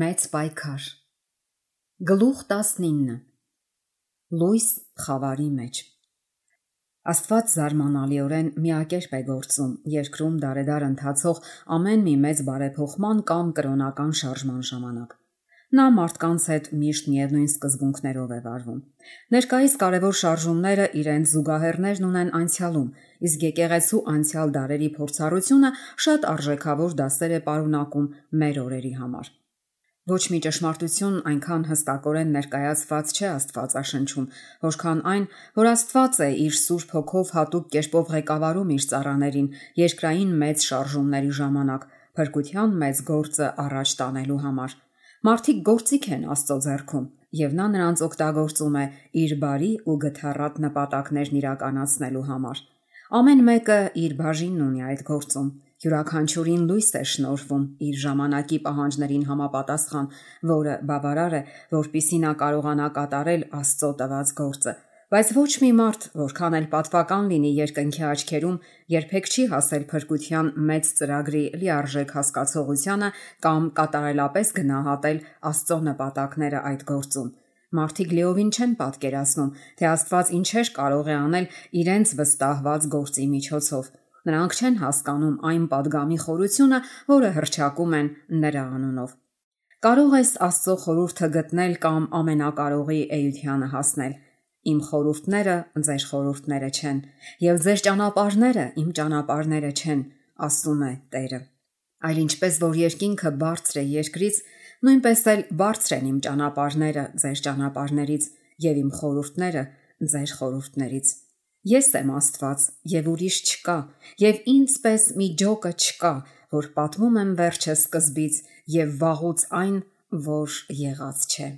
Մեծ պայքար։ Գլուխ 19 Լույս խավարի մեջ։ Աստված զարմանալիորեն միակերպ է գործում երկրում դարեդար ընթացող ամեն մի մեծ բարեփոխման կամ կրոնական շարժման ժամանակ։ Նա մարդկանց հետ միշտ միևնույն սկզբունքներով է վարվում։ Ներկայիս կարևոր շարժումները իրենց զուգահեռներն ունեն անցյալում, իսկ եկեղեցու անցյալ դարերի փորձառությունը շատ արժեքավոր դասեր է պարունակում մեր օրերի համար։ Ոչ մի ճշմարտություն այնքան հստակորեն ներկայացված չէ Աստվածաշնչում, որքան այն, որ Աստված է իր Սուրբ Հոգով հատուկ կերպով ղեկավարում իր ծառաներին երկրային մեծ շարժումների ժամանակ, փրկության մեծ գործը առաջ տանելու համար։ Մարդիկ գործիք են Աստծո ձեռքում, եւ նա նրանց օգտագործում է իր բարի ու գթառատ նպատակներն իրականացնելու համար։ Ամեն մեկը իր բաժինն ունի այդ գործում։ Յուրաքանչյուրին լույս է շնորհվում իր ժամանակի պահանջներին համապատասխան, որը բավարար է, որպեսզի նա կարողանա կատարել Աստծո տված գործը։ Բայց ոչ մի մարդ, որքան էլ պատվական լինի երկնքի աչքերում, երբեք չի հասել փրկության մեծ ծրագրի լիարժեք հասկացողությանը կամ կատարելապես գնահատել Աստծո նպատակները այդ գործում։ Մարդիկ լիովին չեն պատկերացնում, թե Աստված ինչեր կարող է անել իրենց վստահված գործի միջոցով։ Նրանք չեն հասկանում այն պատգամի խորությունը, որը հռչակում են նրա անունով։ Կարող ես Աստծո խորհուրդը գտնել կամ ամենակարողի էությանը հասնել։ Իմ խորհուրդները ձեր խորհուրդները չեն, եւ ձեր ճանապարհները իմ ճանապարհները չեն, ասում է Տերը։ Այլ ինչպես որ երկինքը բարձր է երկրից, նույնպես էլ բարձր են իմ ճանապարհները ձեր ճանապարհներից եւ իմ խորհուրդները ձեր խորհուրդներից։ Ես եմ Աստված եւ ուրիշ չկա, եւ ինձպես մի ջոկը չկա, որ պատմում եմ վերջը սկզբից եւ վաղուց այն, որ եղած չէ։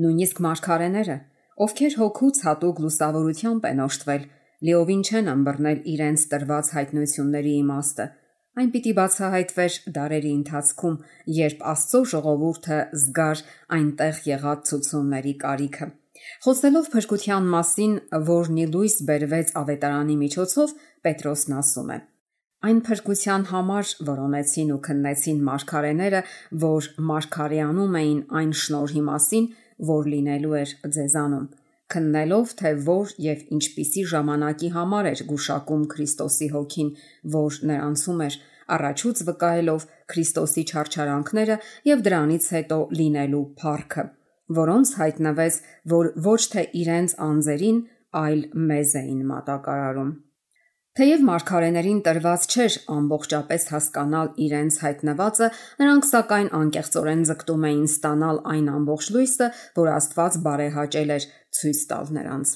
Նույնիսկ մարգարեները, ովքեր հոգուց հատուկ լուսավորությամբ են օժտվել, լիովին չեն ըմբռնել իրենց տրված հայտնությունների իմաստը։ Այն պիտի բացահայտվեր դարերի ընթացքում, երբ Աստծո ժողովուրդը զգար այնտեղ եղած ցուցումների կարիքը։ Խոսելով փրկության մասին, որն ի լույս բերվեց ավետարանի միջոցով, Պետրոսն ասում է. Այն փրկության համար որոնեցին ու քննեցին մարգարեները, որ մարգարեանում էին այն շնորհի մասին, որ լինելու էր ձեզանում, քննելով, թե որ եւ ինչպիսի ժամանակի համար էր գուշակում Քրիստոսի հոգին, որ նրանցում էր, առաջուց վկայելով Քրիստոսի չարչարանքները եւ դրանից հետո լինելու փառքը, որոնց հայտնվեց, որ ոչ թե իրենց անձերին, այլ մեզ էին մատակարարում։ Թեև մարգարեներին տրված չէր ամբողջապես հասկանալ իրենց հայտնվածը, նրանք սակայն անկեղծորեն ձգտում էին ստանալ այն ամբողջ լույսը, որ Աստված բարեհաճել էր ցույց տալ նրանց։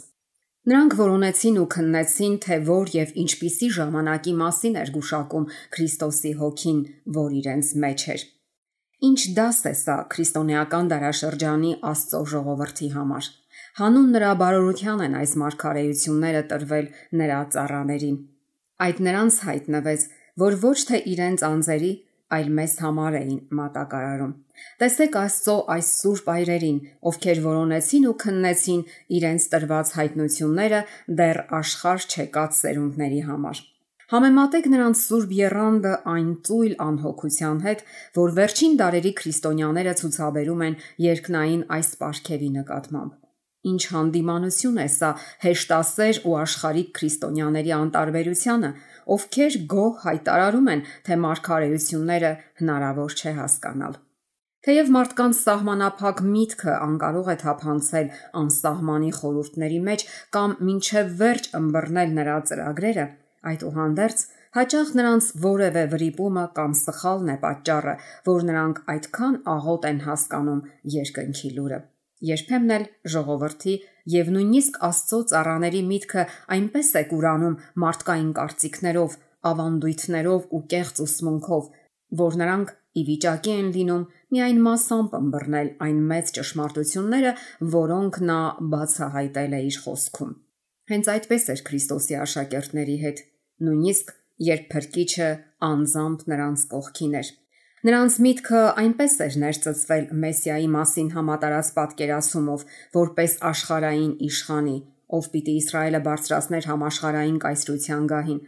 Նրանք որոնեցին ու քննեցին, թե որ եւ ինչպիսի ժամանակի մասին էր գուշակում Քրիստոսի հոգին, որ իրենց մեջ էր։ Ինչ դաս է սա քրիստոնեական դարաշրջանի Աստծո ժողովրդի համար։ Հանուն նրա բարօրության են այս մարգարեությունները տրվել նրա ծառաներին։ Այդ նրանց հայտնվեց, որ ոչ թե իրենց անձերի, այլ մեզ համար էին մատակարարում։ Տեսեք Աստծո այս սուրբ այրերին, ովքեր որոնեցին ու քննեցին իրենց տրված հայտնությունները դեռ աշխարհ չեկած սերունդների համար։ Համեմատեք նրանց սուրբ եռանդը այն ծույլ անհոգության հետ, որ վերջին դարերի քրիստոնյաները ցուցաբերում են երկնային այս պարգևի նկատմամբ։ Ինչ հանդիմանություն է սա հեշտասեր ու աշխարհիկ քրիստոնյաների անտարբերությանը, ովքեր գոհ հայտարարում են, թե մարգարեությունները հնարավոր չէ հասկանալ։ Թեև մարդկանց սահմանափակ միտքը անկարող է թափանցել անսահմանի խորհուրդների մեջ կամ մինչև վերջ ըմբռնել նրա ծրագրերը, այդուհանդերձ հաճախ նրանց որևէ վրիպումը կամ սխալն է պատճառը, որ նրանք այդքան աղոտ են հասկանում երկնքի լուրը։ Երբեմն էլ ժողովրդի եւ նույնիսկ Աստծո ծառաների միտքը այնպես է կուրանում մարդկային կարծիքներով, ավանդույթներով ու կեղծ ուսմունքով, որ նրանք ի վիճակի են լինում միայն մասամբ ըմբռնել այն մեծ ճշմարտությունները, որոնք նա բացահայտել է իր խոսքում։ Հենց այդպես էր Քրիստոսի աշակերտների հետ, նույնիսկ երբ Փրկիչը անձամբ նրանց կողքին էր։ Նրանց միտքը այնպես էր ներծծվել Մեսիայի մասին համատարած պատկերացումով, որպես աշխարհային իշխանի, ով պիտի Իսրայելը բարձրացներ համաշխարհային կայսրության գահին,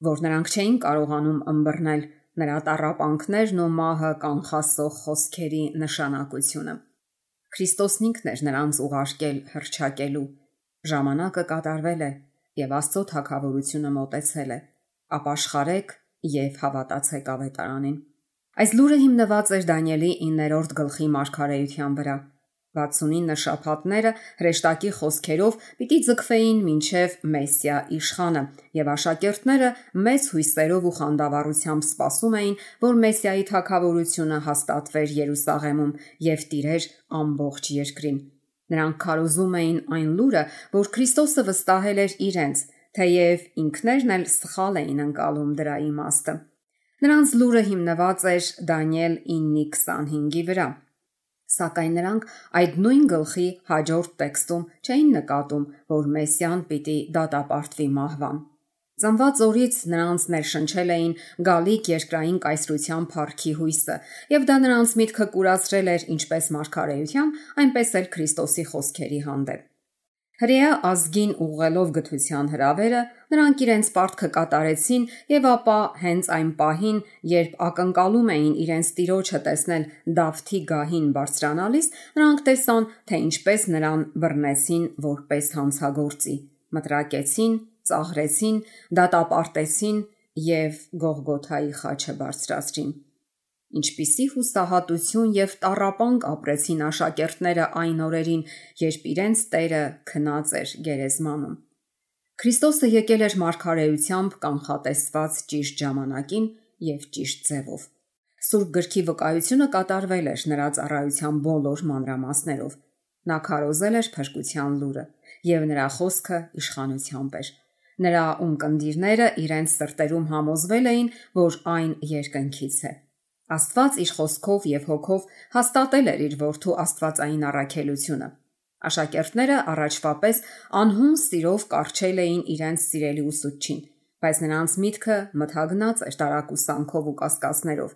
որ նրանք չէին կարողանում ըմբռնել, նրա տառապանքներն ու մահը կանխասող խոսքերի նշանակությունը։ Քրիստոսն ինքն էր նրանց ուղարկել հռչակելու. ժամանակը կատարվել է եւ Աստծո թագավորությունը մոտեցել է, ապաշխարեք եւ հավատացեք ավետարանին։ Այս լուրը հիմնված էր Դանիելի 9-րդ գլխի մարգարեության վրա։ 69 շաբաթները հրեշտակի խոսքերով պիտի ձգվեին մինչև Մեսիա իշխանը, եւ աշակերտները մեծ հույսերով ու խանդավառությամբ սպասում էին, որ Մեսիայի թագավորությունը հաստատվեր Երուսաղեմում եւ տիրեր ամբողջ երկրին։ Նրանք քարոզում էին այն լուրը, որ Քրիստոսը վստահել էր իրենց, թեև ինքներն էլ սխալ էին ընկալում դրա իմաստը։ Նրանց լուրը հիմնված էր Դանիել 9:25-ի վրա։ Սակայն նրանք այդ նույն գլխի հաջորդ տեքստում չէին նկատում, որ Մեսիան պիտի դատապարտվի մահվան։ Ծնված օրից նրանց ներշնչել էին գալիք երկրային կայսրության փառքի հույսը, եւ դա նրանց միտքը կուրացրել էր ինչպես մարգարեության, այնպես էլ Քրիստոսի խոսքերի հանդեպ։ Հրեա ազգին ուղղելով գթության հրավերը, նրանք իրենց պարտքը կատարեցին եւ ապա հենց այն պահին, երբ ակնկալում էին իրենց տիրոջը տեսնել Դավթի գահին բարձրանալիս, նրանք տեսան, թե ինչպես նրան բռնեցին որպես հանցագործի, մտրակեցին, ծաղրեցին, դատապարտեցին եւ Գողգոթայի խաչը բարձրացրին։ Ինչպիսի հուսահատություն եւ տառապանք ապրեցին աշակերտները այն օրերին, երբ իրենց Տերը քնած էր գերեզմանում։ Քրիստոսը եկել էր մարգարեությամբ կանխատեսված ճիշտ ժամանակին եւ ճիշտ ձևով։ Սուրբ գրքի վկայությունը կատարվել էր նրա ծառայության բոլոր մանրամասներով։ Նա քարոզել էր փրկության լուրը եւ նրա խոսքը իշխանությամբ էր։ Նրա ունկնդիրները իրենց սրտերում համոզվել էին, որ այն երկնքից է։ Աստված իր խոսքով եւ հոգով հաստատել էր իր որդու աստվածային առաքելությունը։ Աշակերտները առաջվա պես անհուն սիրով կառչել էին իրենց սիրելի ուսուցչին, բայց նրանց միտքը մթագնած էր տարակուսանքով ու կասկածներով։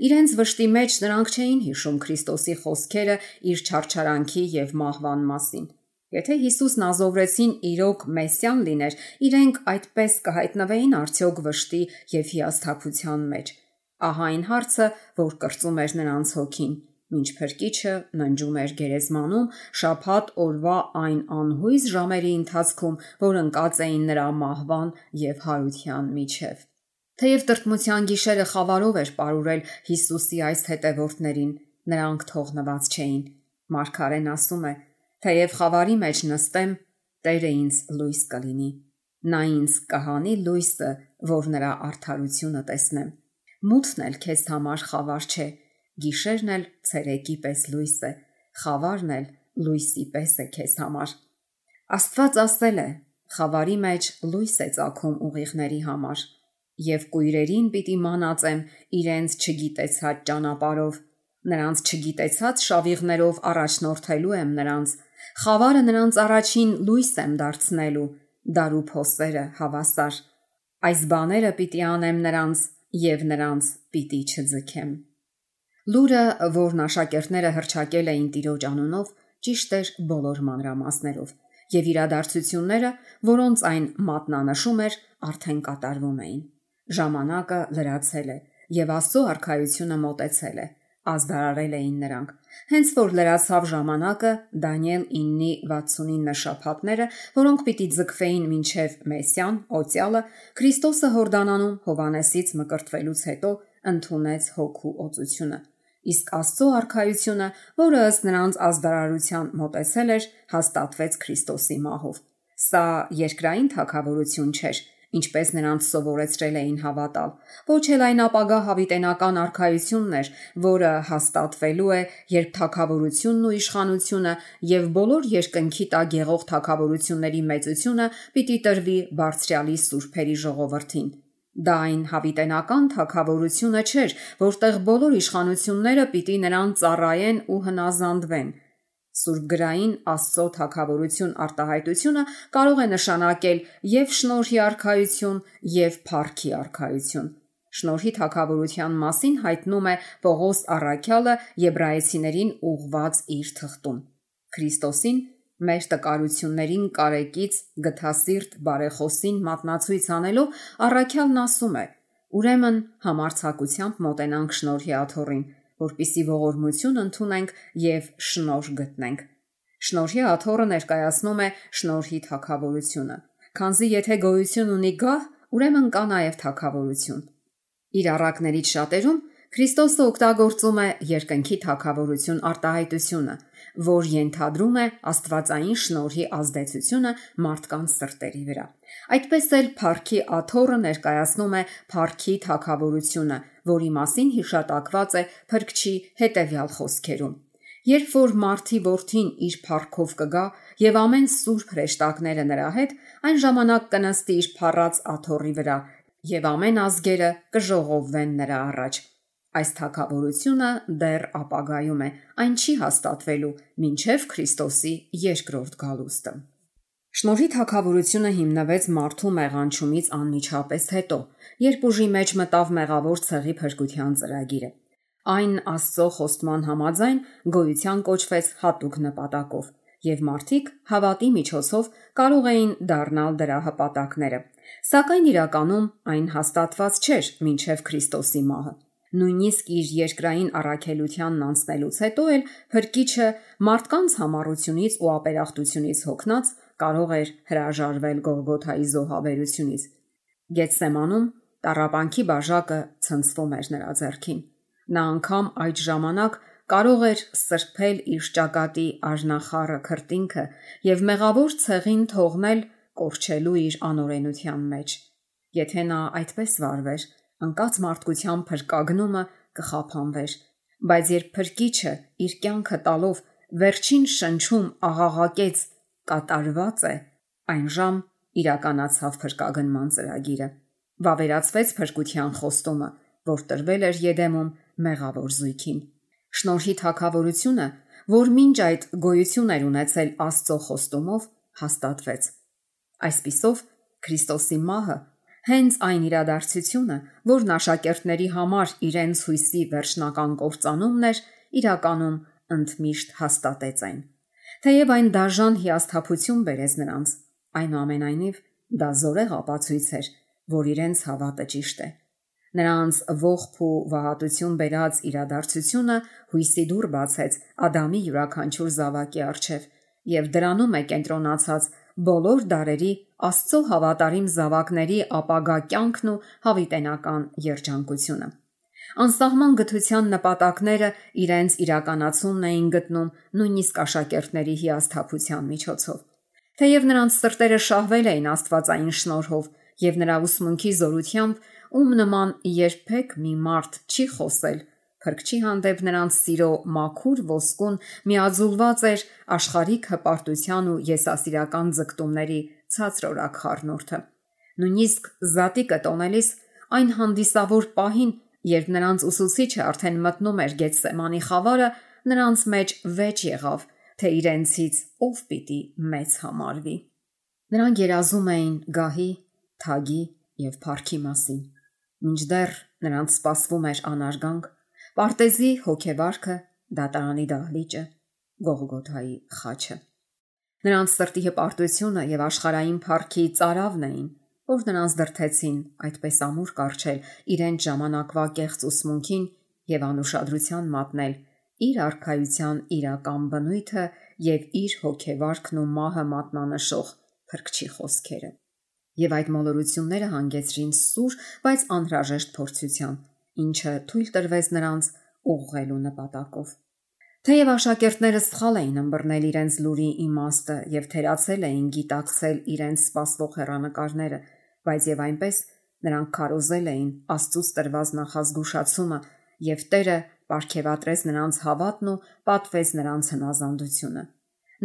Իրենց վշտի մեջ նրանք չէին հիշում Քրիստոսի խոսքերը իր չարչարանքի եւ մահվան մասին։ Եթե Հիսուսն ազովրեցին իրոք Մեսիան լիներ, իրենք այդպես կհայտնվեին արդյոք վշտի եւ հիասթափության մեջ։ Ահա այն հարցը, որ կրծում էր նրանց հոգին, մինչ փրկիչը ննջում էր գերեզմանում շաբաթ օրվա այն անհույս ժամերի ընթացքում, որ ընկած էին նրա մահվան եւ հարության միջև։ Թեև տրտմության գիշերը խավարով էր պարուրել Հիսուսի այս հետևորդներին, նրանք թողնված չէին։ Մարգարեն ասում է. «Թեև խավարի մեջ նստեմ, Տերը ինձ լույս կլինի։ Նա ինձ կհանի լույսը, որ նրա արդարությունը տեսնեմ։ Մութն էլ քեզ համար խավար չէ, գիշերն էլ ցերեկի պես լույս է, խավարն էլ լույսի պես է քեզ համար»։ Աստված ասել է. «Խավարի մեջ լույս է ծագում ուղիղների համար, եւ կույրերին պիտի մանածեմ իրենց չգիտեցած ճանապարհով, նրանց չգիտեցած շավիղներով առաջնորդելու եմ նրանց, խավարը նրանց առաջին լույս եմ դարձնելու, դարու փոսերը հավասար։ Այս բաները պիտի անեմ նրանց եւ նրանց պիտի չձգեմ»։ Լուրը, որն աշակերտները հռչակել էին Տիրոջ անունով, ճիշտ էր բոլոր մանրամասներով, եւ իրադարձությունները, որոնց այն մատնանշում էր, արդեն կատարվում էին։ Ժամանակը լրացել է եւ Աստծո արքայությունը մոտեցել է, ազդարարել էին նրանք։ Հենց որ լրացավ ժամանակը, Դանիել 9:69 շաբաթները, որոնք պիտի ձգվեին մինչև Մեսիան, օծյալը, Քրիստոսը Հորդանանում Հովանեսից մկրտվելուց հետո ընդունեց հոգու օծությունը։ Իսկ Աստծո արքայությունը, որը ըստ նրանց ազդարարության մոտեցել էր, հաստատվեց Քրիստոսի մահով։ Սա երկրային թագավորություն չէր, ինչպես նրանց սովորեցրել էին հավատալ, ոչ էլ այն ապագա հավիտենական արքայությունն էր, որը հաստատվելու է, երբ թագավորությունն ու իշխանությունը եւ բոլոր երկնքի տակ եղող թագավորությունների մեծությունը պիտի տրվի Բարձրյալի սուրբերի ժողովրդին։ Դա այն հավիտենական թագավորությունը չէր, որտեղ բոլոր իշխանությունները պիտի նրան ծառայեն ու հնազանդվեն։ Սուրբգրային Աստծո թագավորություն արտահայտությունը կարող է նշանակել եւ շնորհի արքայություն, եւ փառքի արքայություն։ Շնորհի թագավորության մասին հայտնում է Պողոս առաքյալը Եբրայեցիներին ուղված իր թղթում։ Քրիստոսին մեր տկարություններին կարեկից գթասիրտ բարեխոսին մատնացույց անելով առաքյալն ասում է. Ուրեմն համարձակությամբ մոտենանք շնորհի աթոռին, որպիսի ողորմություն ընդունենք եւ շնորհ գտնենք։ Շնորհի աթոռը ներկայացնում է շնորհի թագավորությունը, քանզի եթե գոյություն ունի գահ, ուրեմն կա նաեւ թագավորություն։ Իր առակներից շատերում Քրիստոսը օգտագործում է երկնքի թագավորություն արտահայտությունը, որ ենթադրում է աստվածային շնորհի ազդեցությունը մարդկանց սրտերի վրա։ Այդպես էլ փառքի աթոռը ներկայացնում է փառքի թագավորությունը, որի մասին հիշատակված է Փրկչի հետևյալ խոսքերում. Երբ որ Մարդի որդին իր փառքով կգա եւ ամեն սուրբ հրեշտակները նրա հետ, այն ժամանակ կնստի իր փառած աթոռի վրա եւ ամեն ազգերը կժողովվեն նրա առաջ։ Այս թագավորությունը դեռ ապագայում է, այն չի հաստատվելու մինչև Քրիստոսի երկրորդ գալուստը։ Շնորհի թագավորությունը հիմնվեց մարդու մեղանչումից անմիջապես հետո, երբ ուժի մեջ մտավ մեղավոր ցեղի փրկության ծրագիրը։ Այն Աստծո խոստման համաձայն գոյության կոչվեց հատուկ նպատակով, եւ մարդիկ հավատի միջոցով կարող էին դառնալ դրա հպատակները։ Սակայն իրականում այն հաստատված չէր մինչև Քրիստոսի մահը։ Նույնիսկ իր երկրային առաքելությանն անցնելուց հետո էլ Փրկիչը մարդկանց համառությունից ու ապերախտությունից հոգնած կարող էր հրաժարվել Գողգոթայի զոհաբերությունից։ Գեթսեմանում տառապանքի բաժակը ցնցվում էր նրա ձեռքին։ Նա անգամ այդ ժամանակ կարող էր սրբել իր ճակատի արժանախառը քրտինքը եւ մեղավոր ցեղին թողնել կորչելու իր անօրենության մեջ։ Եթե նա այդպես վարվեր, անկած մարդկության փրկագնումը կխափանվեր, բայց երբ Փրկիչը իր կյանքը տալով վերջին շնչում աղաղակեց կատարված է, այնժամ իրականացավ փրկագնման ծրագիրը։ Վավերացվեց փրկության խոստումը, որ տրվել էր Եդեմում մեղավոր զույգին։ Շնորհի թագավորությունը, որ մինչ այդ գոյություն էր ունեցել Աստծո խոստումով, հաստատվեց։ Այսպիսով Քրիստոսի մահը հենց այն իրադարձությունը, որն աշակերտների համար իրենց հույսի վերջնական կործանումն էր, իրականում ընդմիշտ հաստատեց այն։ Թեև այն դաժան հիասթափություն բերեց նրանց, այնուամենայնիվ դա զորեղ ապացույց էր, որ իրենց հավատը ճիշտ է։ Նրանց ողբ ու վհատություն բերած իրադարձությունը հույսի դուռ բացեց Ադամի յուրաքանչյուր զավակի առջև եւ դրանում է կենտրոնացած բոլոր դարերի Աստծո հավատարիմ զավակների ապագա կյանքն ու հավիտենական երջանկությունը։ Անսահման գթության նպատակները իրենց իրականացումն էին գտնում նույնիսկ աշակերտների հիասթափության միջոցով։ Թեև նրանց սրտերը շահվել էին աստվածային շնորհով եւ նրա ուսմունքի զորությամբ, ում նման երբեք մի մարդ չի խոսել, Փրկչի հանդեպ նրանց սիրո մաքուր ոսկուն միաձուլված էր աշխարհիկ հպարտության ու եսասիրական ձգտումների ցածրորակ խառնուրդը։ Նույնիսկ զատիկը տոնելիս այն հանդիսավոր պահին, երբ նրանց ուսուցիչը արդեն մտնում էր Գեթսեմանի խավարը, նրանց մեջ վեճ եղավ, թե իրենցից ով պիտի մեծ համարվի։ Նրանք երազում էին գահի, թագի եւ փառքի մասին։ Մինչդեռ նրանց սպասվում էր անարգանք, պարտեզի հոգեվարքը, դատարանի դահլիճը, Գողգոթայի խաչը։ Նրանց սրտի հպարտությունը եւ աշխարհային փառքի ծարավն էին, որ նրանց դրթեցին այդպես ամուր կառչել իրենց ժամանակվա կեղծ ուսմունքին եւ անուշադրության մատնել իր արքայության իրական բնույթը եւ իր հոգեվարքն ու մահը մատնանշող Փրկչի խոսքերը։ Եվ այդ մոլորությունները հանգեցրին սուր, բայց անհրաժեշտ փորձության, ինչը թույլ տրվեց նրանց ուղղելու նպատակով։ Թեև աշակերտները սխալ էին ըմբռնել իրենց լուրի իմաստը եւ թերացել էին գիտակցել իրենց սպասվող հեռանկարները, բայց եւ այնպես նրանք քարոզել էին Աստծուց տրված նախազգուշացումը եւ Տերը պարգևատրեց նրանց հավատն ու պատվեց նրանց հնազանդությունը։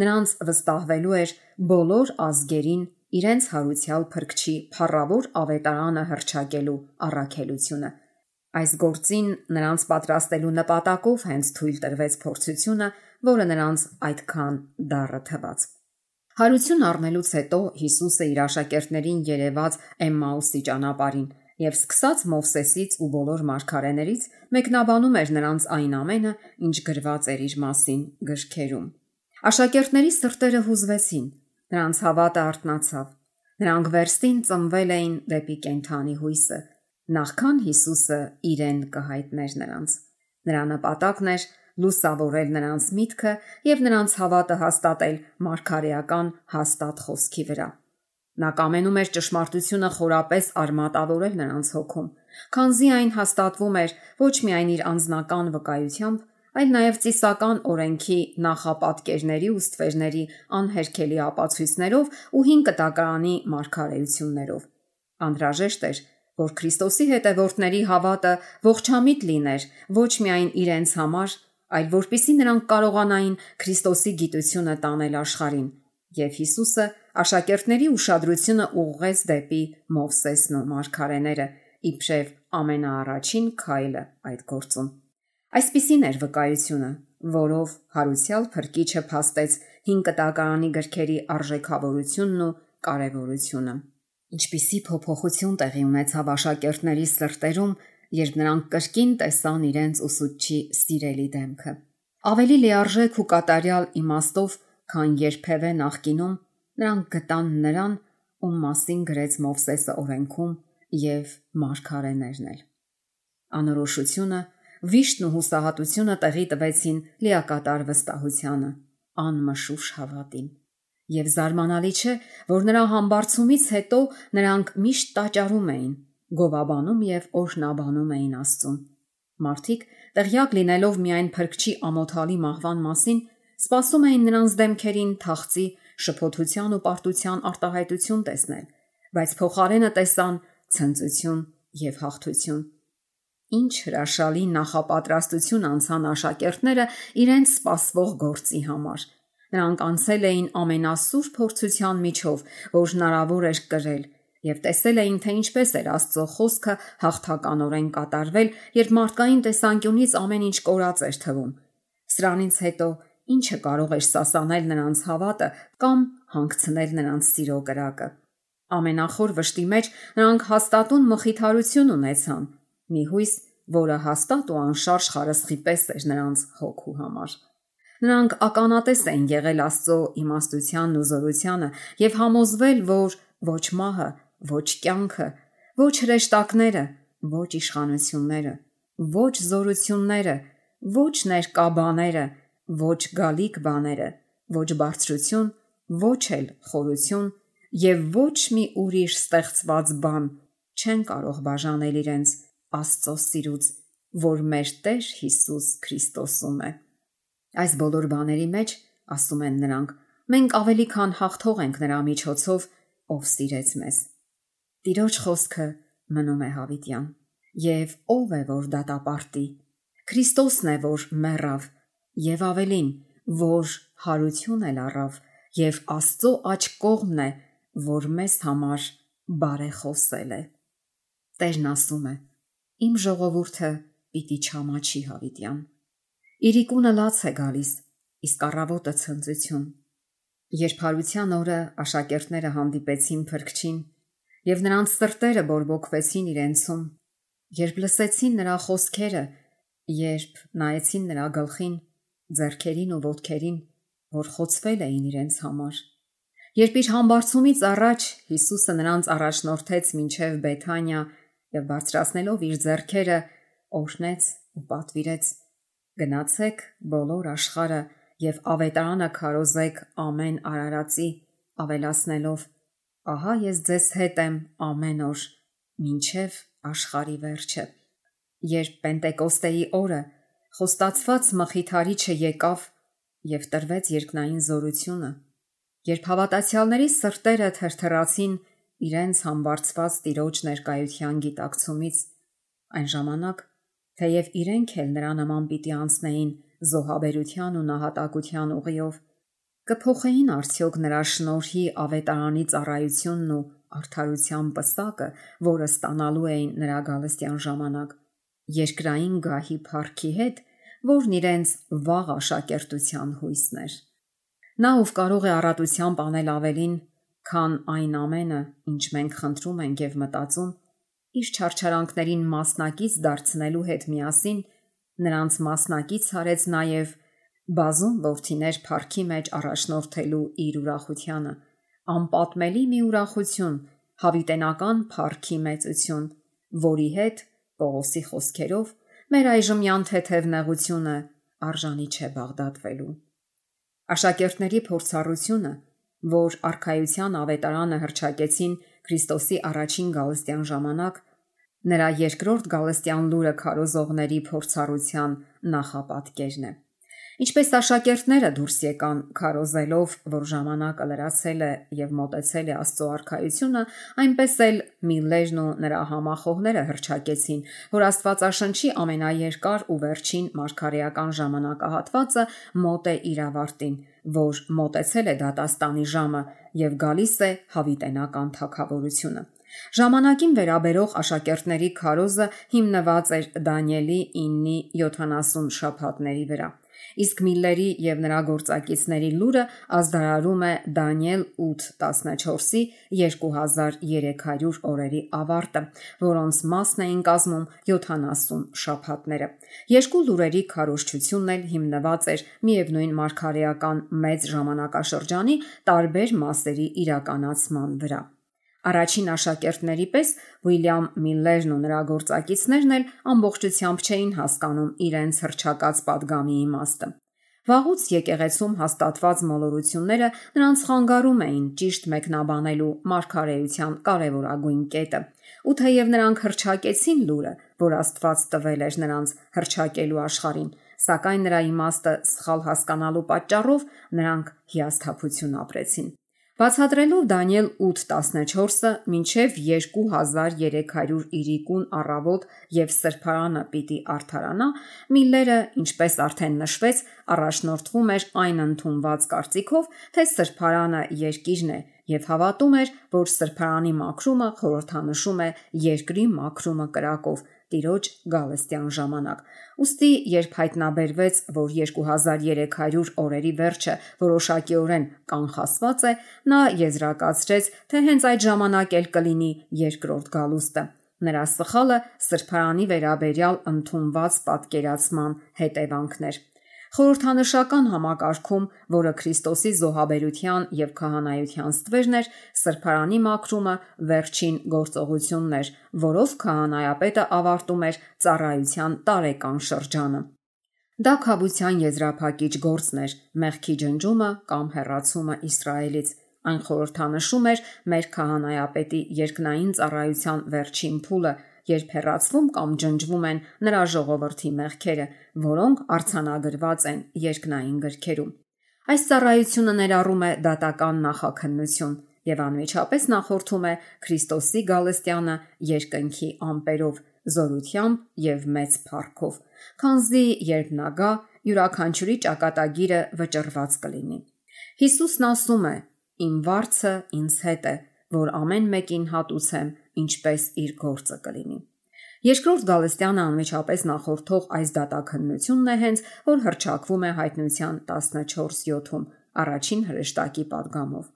Նրանց վստահվելու էր բոլոր ազգերին իրենց հարուցյալ Փրկչի փառավոր ավետարանը հռչակելու առաքելությունը։ Այս գործին նրանց պատրաստելու նպատակով հենց թույլ տրվեց փորձությունը, որը նրանց այդքան դառը թվաց։ Հարություն առնելուց հետո Հիսուսը իր աշակերտներին երևաց Էմմաուսի ճանապարհին եւ սկսած Մովսեսից ու բոլոր մարգարեներից մեկնաբանում էր նրանց այն ամենը, ինչ գրված էր իր մասին գրքերում։ Աշակերտների սրտերը հուզվեցին, նրանց հավատը արթնացավ։ Նրանք վերստին ծնվել էին դեպի կենթանի հույսը։ նախքան Հիսուսը իրեն կհայտներ նրանց։ Նրա նպատակն էր լուսավորել նրանց միտքը եւ նրանց հավատը հաստատել մարգարեական հաստատ խոսքի վրա։ Նա կամենում էր ճշմարտությունը խորապես արմատավորել նրանց հոգում, քանզի այն հաստատվում էր ոչ միայն իր անձնական վկայությամբ, այլ նաև ծիսական օրենքի նախապատկերների ու ստվերների անհերքելի ապացույցներով ու հին կտակարանի մարգարեություններով։ Անհրաժեշտ էր, որ Քրիստոսի հետևորդների հավատը ողջամիտ լիներ ոչ միայն իրենց համար, այլ որպեսզի նրանք կարողանային Քրիստոսի գիտությունը տանել աշխարհին, եւ Հիսուսը աշակերտների ուշադրությունը ուղղեց դեպի Մովսեսն ու մարգարեները, իբրև ամենաառաջին քայլը այդ գործում։ Այսպիսին էր վկայությունը, որով հարուցյալ Փրկիչը փաստեց հին կտակարանի գրքերի արժեքավորությունն ու կարևորությունը։ Ինչպիսի փոփոխություն տեղի ունեցավ աշակերտների սրտերում, երբ նրանք կրկին տեսան իրենց ուսուցչի սիրելի դեմքը։ Ավելի լիարժեք ու կատարյալ իմաստով, քան երբևէ նախկինում, նրանք գտան նրան, ում մասին գրեց Մովսեսը օրենքում եւ մարգարեներն էլ։ Անորոշությունը, վիշտն ու հուսահատությունը տեղի տվեցին լիակատար վստահությանը, անմշուշ հավատին։ Եվ զարմանալի չէ, որ նրա համբարձումից հետո նրանք միշտ տաճարում էին, գովաբանում եւ օրհնաբանում էին Աստծուն։ Մարդիկ, տեղյակ լինելով միայն Փրկչի ամոթալի մահվան մասին, սպասում էին նրանց դեմքերին թախծի, շփոթության ու պարտության արտահայտություն տեսնել, բայց փոխարենը տեսան ցնծություն եւ հաղթություն։ Ինչ հրաշալի նախապատրաստություն անցան աշակերտները իրենց սպասվող գործի համար։ Նրանք անցել էին ամենասուրբ փորձության միջով, որ հնարավոր էր կրել, եւ տեսել էին, թե ինչպես էր Աստծո խոսքը հաղթականորեն կատարվել, երբ մարդկային տեսանկյունից ամեն ինչ կորած էր թվում։ Սրանից հետո ինչը կարող էր սասանել նրանց հավատը կամ հանգցնել նրանց սիրո կրակը։ Ամենախոր վշտի մեջ նրանք հաստատուն մխիթարություն ունեցան, մի հույս, որը հաստատ ու անշարժ խարսխի պես էր նրանց հոգու համար։ Նրանք ականատես էին եղել Աստծո իմաստությանն ու զորությանը եւ համոզվել, որ ոչ մահը, ոչ կյանքը, ոչ հրեշտակները, ոչ իշխանությունները, ոչ զորությունները, ոչ ներկա բաները, ոչ գալիք բաները, ոչ բարձրություն, ոչ էլ խորություն եւ ոչ մի ուրիշ ստեղծված բան չեն կարող բաժանել իրենց Աստծո սիրուց, որ մեր Տեր Հիսուս Քրիստոսում է։ Այս բոլոր բաների մեջ, ասում են նրանք, մենք ավելի քան հաղթող ենք նրա միջոցով, ով սիրեց մեզ։ Տիրոջ խոսքը մնում է հավիտյան։ Եվ ով է, որ դատապարտի։ Քրիստոսն է, որ մեռավ, եւ ավելին, որ հարություն էլ առավ, եւ Աստծո աջ կողմն է, որ մեզ համար բարեխոսել է։ Տերն ասում է. Իմ ժողովուրդը պիտի չամաչի հավիտյան։ Իրիկունը լաց է գալիս, իսկ առավոտը ցնծություն։ Երբ հարության օրը աշակերտները հանդիպեցին Փրկչին, եւ նրանց սրտերը բորբոքվեցին իրենցում, երբ լսեցին նրա խոսքերը, երբ նայեցին նրա գլխին, ձեռքերին ու ոտքերին, որ խոցվել էին իրենց համար, երբ իր համբարձումից առաջ Հիսուսը նրանց առաջնորդեց մինչև Բեթանիա եւ բարձրացնելով իր ձեռքերը օրհնեց ու պատվիրեց. գնացեք բոլոր աշխարհը եւ ավետարանը քարոզեք ամեն արարածի, ավելացնելով. ահա ես ձեզ հետ եմ ամեն օր, մինչև աշխարհի վերջը։ Երբ Պենտեկոստեի օրը խոստացված մխիթարիչը եկավ եւ տրվեց երկնային զորությունը, երբ հավատացյալների սրտերը թրթռացին իրենց համբարձված Տիրոջ ներկայության գիտակցումից, այն ժամանակ, թեև իրենք էլ նրա նման պիտի անցնեին զոհաբերության ու նահատակության ուղիով, կփոխեին արդյոք նրա շնորհի ավետարանի ծառայությունն ու արդարության պսակը, որը ստանալու էին նրա գալստյան ժամանակ, երկրային գահի փառքի հետ, որն իրենց վաղ աշակերտության հույսն էր։ Նա, ով կարող է առատությամբ անել ավելին, քան այն ամենը, ինչ մենք խնդրում ենք եւ մտածում, իր չարչարանքներին մասնակից դարձնելու հետ միասին, նրանց մասնակից արեց նաև բազում որդիներ փառքի մեջ առաջնորդելու իր ուրախությանը, անպատմելի մի ուրախություն, հավիտենական փառքի մեծություն, որի հետ, Պողոսի խոսքերով, մեր այժմյան թեթև նեղությունը արժանի չէ բաղդատվելու։ Աշակերտների փորձառությունը, որ արքայության ավետարանը հռչակեցին Քրիստոսի առաջին գալստյան ժամանակ, նրա երկրորդ գալստյան լուրը քարոզողների փորձառության նախապատկերն է։ Ինչպես աշակերտները դուրս եկան քարոզելով, որ ժամանակը լրացել է եւ մոտեցել է Աստծո արքայությունը, այնպես էլ Միլլերն ու նրա համախոհները հռչակեցին, որ Աստվածաշնչի ամենաերկար ու վերջին մարգարեական ժամանակահատվածը մոտ է իր ավարտին, որ մոտեցել է դատաստանի ժամը եւ գալիս է հավիտենական թագավորությունը։ Ժամանակին վերաբերող աշակերտների քարոզը հիմնված էր Դանիելի 9-70 շաբաթների վրա, իսկ Միլլերի եւ նրա գործակիցների լուրը ազդարարում է Դանիել 8-14-ի 2300 օրերի ավարտը, որոնց մասն էին կազմում 70 շաբաթները։ Երկու լուրերի քարոզչությունն էլ հիմնված էր միևնույն մարգարեական մեծ ժամանակաշրջանի տարբեր մասերի իրականացման վրա։ Առաջին աշակերտների պես Ուիլյամ Միլլերն ու նրա գործակիցներն էլ ամբողջությամբ չէին հասկանում իրենց հռչակած падգամի իմաստը։ Վաղուց եկեղեցում հաստատված մոլորությունները նրանց խանգարում էին ճիշտ մեկնաբանելու մարգարեության կարևորագույն կետը։ Ու թեև նրանք հռչակեցին լուրը, որ Աստված տվել էր նրանց հռչակելու աշխարհին, սակայն նրա իմաստը սխալ հասկանալու պատճառով նրանք հիասթափություն ապրեցին։ Բացատրելով Դանիել 8:14-ը մինչև 2300 իրիկուն առավոտ եւ սրբարանը պիտի արդարանա, Միլլերը, ինչպես արդեն նշվեց, առաջնորդվում էր այն ընդունված կարծիքով, թե սրբարանը երկիրն է եւ հավատում էր, որ սրբարանի մաքրումը խորհրդանշում է երկրի մաքրումը կրակով Տիրոջ գալստյան ժամանակ։ Ուստի երբ հայտնաբերվեց, որ 2300 օրերի վերջը որոշակիորեն կանխասված է, նա եզրակացրեց, թե հենց այդ ժամանակ էլ կլինի երկրորդ գալուստը։ Նրա սխալը սրբարանի վերաբերյալ ընդունված պատկերացման հետևանքներ։ Խորհրդանշական համակարգում, որը Քրիստոսի զոհաբերության եւ քահանայության ստվերն էր, սրբարանի մաքրումը վերջին գործողությունն էր, որով քահանայապետը ավարտում էր ծառայության տարեկան շրջանը։ Դա քավության եզրափակիչ գործն էր, մեղքի ջնջումը կամ հեռացումը Իսրայելից։ Այն խորհրդանշում էր մեր քահանայապետի երկնային ծառայության վերջին փուլը, երբ հեռացվում կամ ջնջվում են նրա ժողովրդի մեղքերը, որոնք արձանագրված են երկնային գրքերում։ Այս ծառայությունը ներառում է դատական նախաքննություն եւ անմիջապես նախորդում է Քրիստոսի գալստյանը երկնքի ամպերով, զորությամբ եւ մեծ փառքով, քանզի երբ նա գա, յուրաքանչյուրի ճակատագիրը վճռված կլինի։ Հիսուսն ասում է. «Իմ վարձը ինձ հետ է, որ ամեն մեկին հատուցեմ, ինչպես իր գործը կլինի»։ Երկրորդ գալստյանը անմիջապես նախորդող այս դատաքննությունն է հենց, որ հռչակվում է Հայտնության 14:7-ում առաջին հրեշտակի падգամով։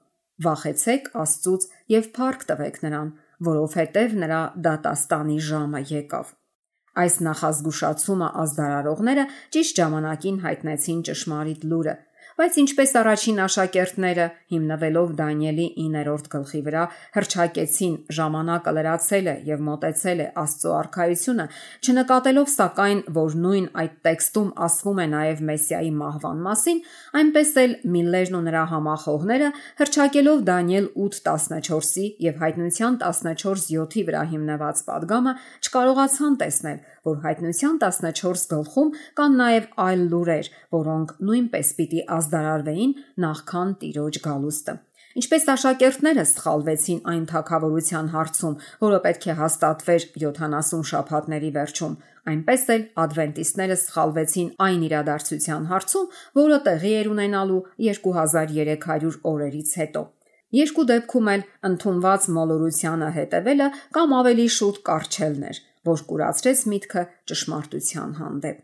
Վախեցեք Աստծուց եւ փառք տվեք նրան, որովհետեւ նրա դատաստանի ժամը եկավ։ Այս նախազգուշացումը ազդարարողները ճիշտ ժամանակին հայտնեցին ճշմարիտ լուրը, բայց ինչպես առաջին աշակերտները, հիմնվելով Դանիելի 9-րդ գլխի վրա, հռչակեցին ժամանակը լրացել է եւ մոտեցել է Աստծո արքայությունը, չնկատելով սակայն, որ նույն այդ տեքստում ասվում է նաեւ Մեսիայի մահվան մասին, այնպես էլ Միլլերն ու նրա համախոհները, հռչակելով Դանիել 8:14-ի եւ Հայտնության 14:7-ի վրա հիմնված падգամը, չկարողացան տեսնել, որ Հայտնության 14 գլխում կան նաեւ այլ լուրեր, որոնք նույնպես պիտի ազդարարվեին նախքան Տիրոջ գալուստը։ Ինչպես աշակերտները սխալվեցին այն թագավորության հարցում, որը պետք է հաստատվեր 70 շաբաթների վերջում, այնպես էլ ադվենտիստները սխալվեցին այն իրադարձության հարցում, որը տեղի էր ունենալու 2300 օրերից հետո։ Երկու դեպքում էլ ընդունված մոլորությանը հետևելը կամ ավելի շուտ կառչելն էր, որ կուրացրեց միտքը ճշմարտության հանդեպ։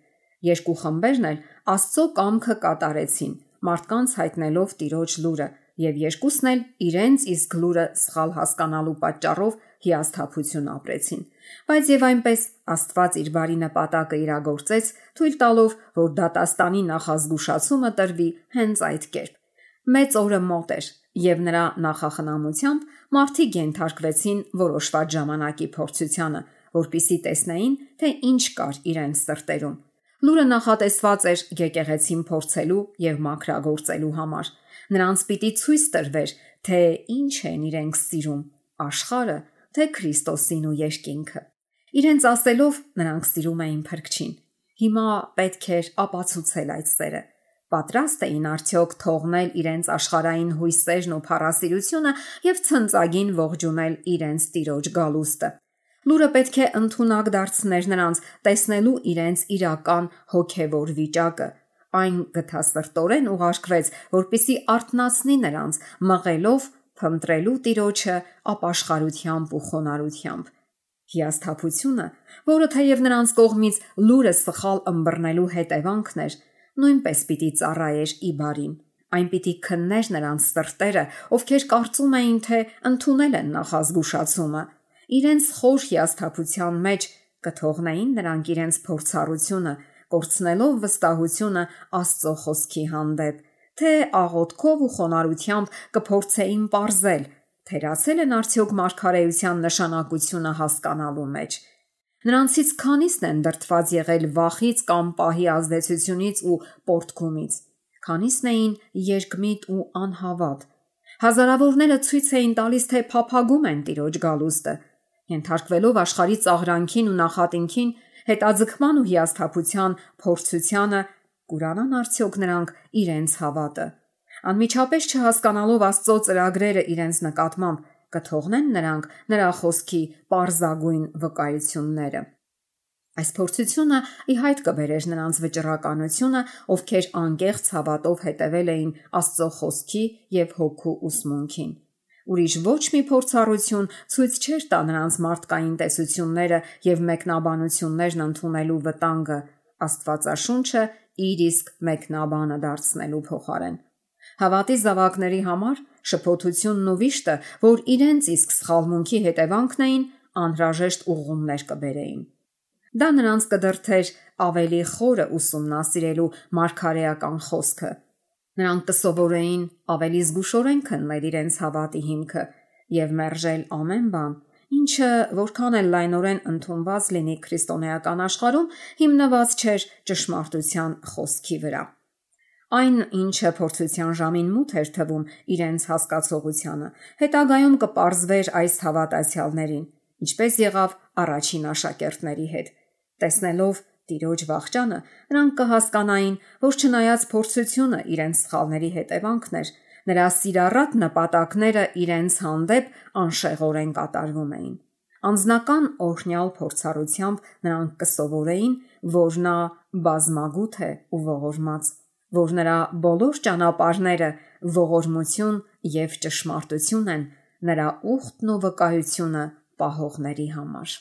Երկու խմբերն էլ Աստծո կամքը կատարեցին, մարդկանց հայտնելով Տիրոջ լուրը, եւ երկուսն էլ իրենց իսկ լուրը սխալ հասկանալու պատճառով հիասթափություն ապրեցին։ Բայց եւ այնպես Աստված իր բարի նպատակը իրագործեց, թույլ տալով, որ դատաստանի նախազգուշացումը տրվի հենց այդ կերպ։ Մեծ օրը մոտ էր, եւ նրա նախախնամությամբ մարդիկ ենթարկվեցին որոշված ժամանակի փորձությանը, որpիսի տեսնեին, թե ինչ կար իրենց սրտերում։ Լուրը նախատեսված էր եկեղեցին փորձելու եւ մաքրագործելու համար։ Նրանց պիտի ցույց տրվեր, թե ինչ են իրենք սիրում՝ աշխարհը, թե Քրիստոսին ու երկինքը։ Իրենց ասելով նրանք սիրում էին Փրկչին։ Հիմա պետք էր ապացուցել այդ սերը։ Պատրաստ էին արդյոք թողնել իրենց աշխարհային հույսերն ու փառասիրությունը եւ ցնծագին ողջունել իրենց Տիրոջ գալուստը։ Լուրը պետք է ընդունակ դարձներ նրանց, տեսնելու իրենց իրական հոգևոր վիճակը։ Այն գթասրտորեն ուղարկվեց, որպիսի արթնացնի նրանց, մղելով փնտրելու Տիրոջը ապաշխարությամբ ու խոնարհությամբ։ Հիասթափությունը, որը թեև նրանց կողմից լուրը սխալ ըմբռնելու հետևանքն էր, նույնպես պիտի ծառայեր ի բարին։ Այն պիտի քններ նրանց սրտերը, ովքեր կարծում էին, թե ընդունել են նախազգուշացումը։ Իրենց խոր հիասթափության մեջ կթողնեին նրանք իրենց փորձառությունը, կորցնելով վստահությունը Աստծո խոսքի հանդեպ, թե աղոթքով ու խոնարհությամբ կփորձեին պարզել, թերացել են արդյոք մարգարեության նշանակությունը հասկանալու մեջ։ Նրանցից քանիսն են դրդված եղել վախից կամ պահի ազդեցությունից ու պոռթկումից։ Քանիսն էին երկմիտ ու անհավատ։ Հազարավորները ցույց էին տալիս, թե փափագում են Տիրոջ գալուստը, ենթարկվելով աշխարհի ծաղրանքին ու նախատինքին, հետաձգման ու հիասթափության փորձությանը, կուրանան արդյոք նրանք իրենց հավատը։ Անմիջապես չհասկանալով Աստծո ծրագրերը իրենց նկատմամբ, կթողնեն նրանք նրա խոսքի պարզագույն վկայությունները։ Այս փորձությունը ի հայտ կբերեր նրանց վճռականությունը, ովքեր անկեղծ հավատով հետևել էին Աստծո խոսքի եւ հոգու ուսմունքին։ Ուրիշ ոչ մի փորձառություն ցույց չէր տա նրանց մարդկային տեսությունները եւ մեկնաբանություններն ընդունելու վտանգը, Աստվածաշունչը իր իսկ մեկնաբանը դարձնելու փոխարեն։ Հավատի զավակների համար շփոթությունն ու վիշտը, որ իրենց իսկ սխալմունքի հետևանքն էին, անհրաժեշտ ուղղումներ կբերեին։ Դա նրանց կդրդեր ավելի խորը ուսումնասիրելու մարգարեական խոսքը։ Նրանք կսովորեին ավելի զգուշորեն քննել իրենց հավատի հիմքը եւ մերժել ամեն բան, ինչը որքան էլ լայնորեն ընդունված լինի քրիստոնեական աշխարհում, հիմնված չէր ճշմարտության խոսքի վրա։ Այն, ինչը փորձության ժամին մութ էր թվում իրենց հասկացողությանը, հետագայում կպարզվեր այս հավատացյալներին, ինչպես եղավ առաջին աշակերտների հետ։ Տեսնելով Տիրոջ վախճանը, նրանք կհասկանային, որ չնայած փորձությունը իրենց սխալների հետևանքն էր, նրա սիրառատ նպատակները իրենց հանդեպ անշեղորեն կատարվում էին։ Անձնական օրհնյալ փորձառությամբ նրանք կսովորեին, որ նա բազմագութ է ու ողորմած, որ նրա բոլոր ճանապարհները ողորմություն եւ ճշմարտություն են նրա ուխտն ու վկայությունը պահողների համար։